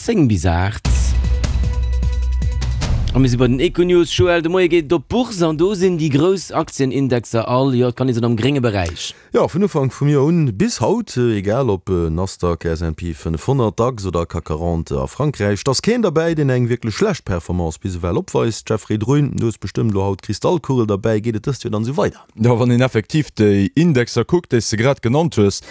10 bis 8. A mir si bei den Econews. Joël, de Moie geet et op d'Bourse an do sinn déi grouss Aktienindexer all, jo, et kann ee soen, am grénge Beräich. Jo, vun Ufank vum Joer un bis haut, egal ob Nasdaq, S&P 500, Dax oder CAC 40 a Frankräich, et ass keen derbäi, deen eng wierklech schlecht Performance bis ewell opweist. Jeffrey Druin, du hues bestëmmt elo haut d'Kristallkugel derbäi, geet et dëst Joer dann esou weider? Jo, wann een effektiv déi Indexer kuckt, déi s de grad genannt hues,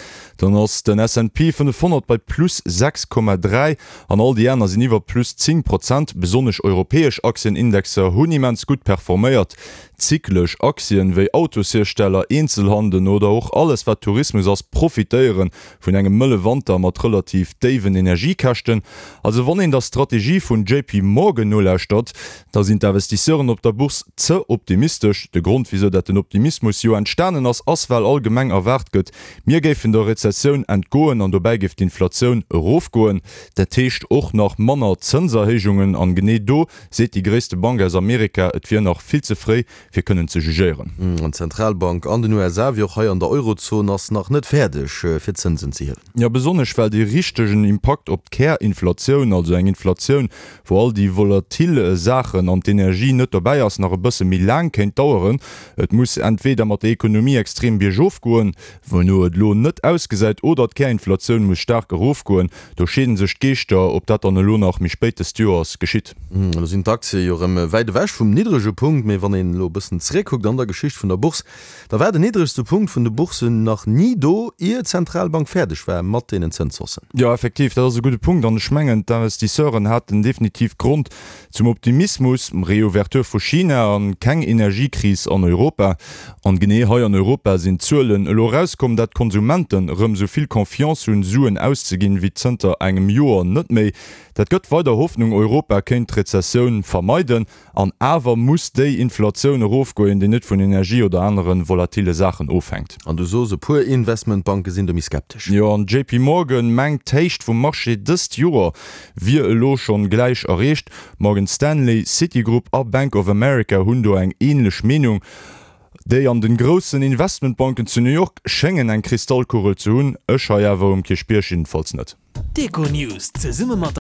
dann ass den S&P 500 bei plus 6,3 an all déi aner sinn iwwer plus 10 Prozent. Besonnesch europäesch Aktienindexer hunn immens gutt performéiert. Zyklesch Aktien wéi Autoshiersteller, Eenzelhanden oder och alles wat Tourismus ass profitéiere vun engem mëlle Wanter mat relativ déiwen Energiekäschten. Also wann een der Strategie vun JP Morgan nolauschtert, da sinn d'Investisseuren op der Bourse ze optimistesch. De Grond wisou dat den Optimismus jo entstanen ass, ass well allgemeng erwaart gëtt, mir géifen der Rezessioun entgoen an dobäi géif d'Inflatioun erofgoen. Dat heescht och nach manner Zënserhéijungen. An genee do seet déi gréisste Bank aus Amerika, et wier nach vill ze fréi fir kënnen ze jugéieren. An d'Zentralbank an den USA, wéi och hei an der Eurozon, ass nach net fäerdeg fir d'Zënsen ze hiewen. Jo, besonnesch well dee richtegen Impakt op d'Kärinflatioun, also eng Inflatioun, wou all déi volatil Saachen an d'Energie net dobäi ass, nach e bësse méi laang kéint daueren. Et muss entweder mat der Ekonomie extrem biergof goen, wouno et elo net ausgesäit, oder d'Kärinflatioun muss staark erofgoen. Do scheeden sech d'Geeschter, ob dat dann elo nach méi spéit dëst Joers geschitt. Elo sinn d'Aktie jo erëm wäit ewech vum niddrege Punkt, mee wann een elo e bëssen zeréckkuckt an der Geschicht vun der Bourse, da war den niddregste Punkt vun de Boursen nach ni do, ier d'Zentralbank fäerdeg war mat deenen Zënshaussen. Jo, effektiv, dat ass e gudde Punkt an ech mengen, d'Investisseuren haten definitiv Grond zum Optimismus. Reouverture vu China an keng Energiekris an Europa. An genee hei an Europa sinn d'Zuelen elo erauskomm, dat d'Konsumenten erëm esou vill Confiance hunn, Suen auszeginn, wéi zënter engem Joer net méi. Dat gëtt weider Hoffnung, Europa kéint d'Rezessioun vermeiden. An awer muss déi Inflatioun erofgoen, déi net vun Energie oder anere volatile Saachen ofhänkt. An du sos, e puer Investmentbanke sinn do méi skeptesch. Jo, an JP Morgan mengt, d'Héicht vum Marché dëst Joer wier elo schonn gläich erreecht. Morgan Stanley, Citigroup a Bank of America hunn do eng änlech Meenung. Déi an den groussen Investmentbanken zu New York schéngen eng Kristallkugel ze hunn, ech hei awer um Kierchbierg jiddefalls net. D'Econews zesumme mat.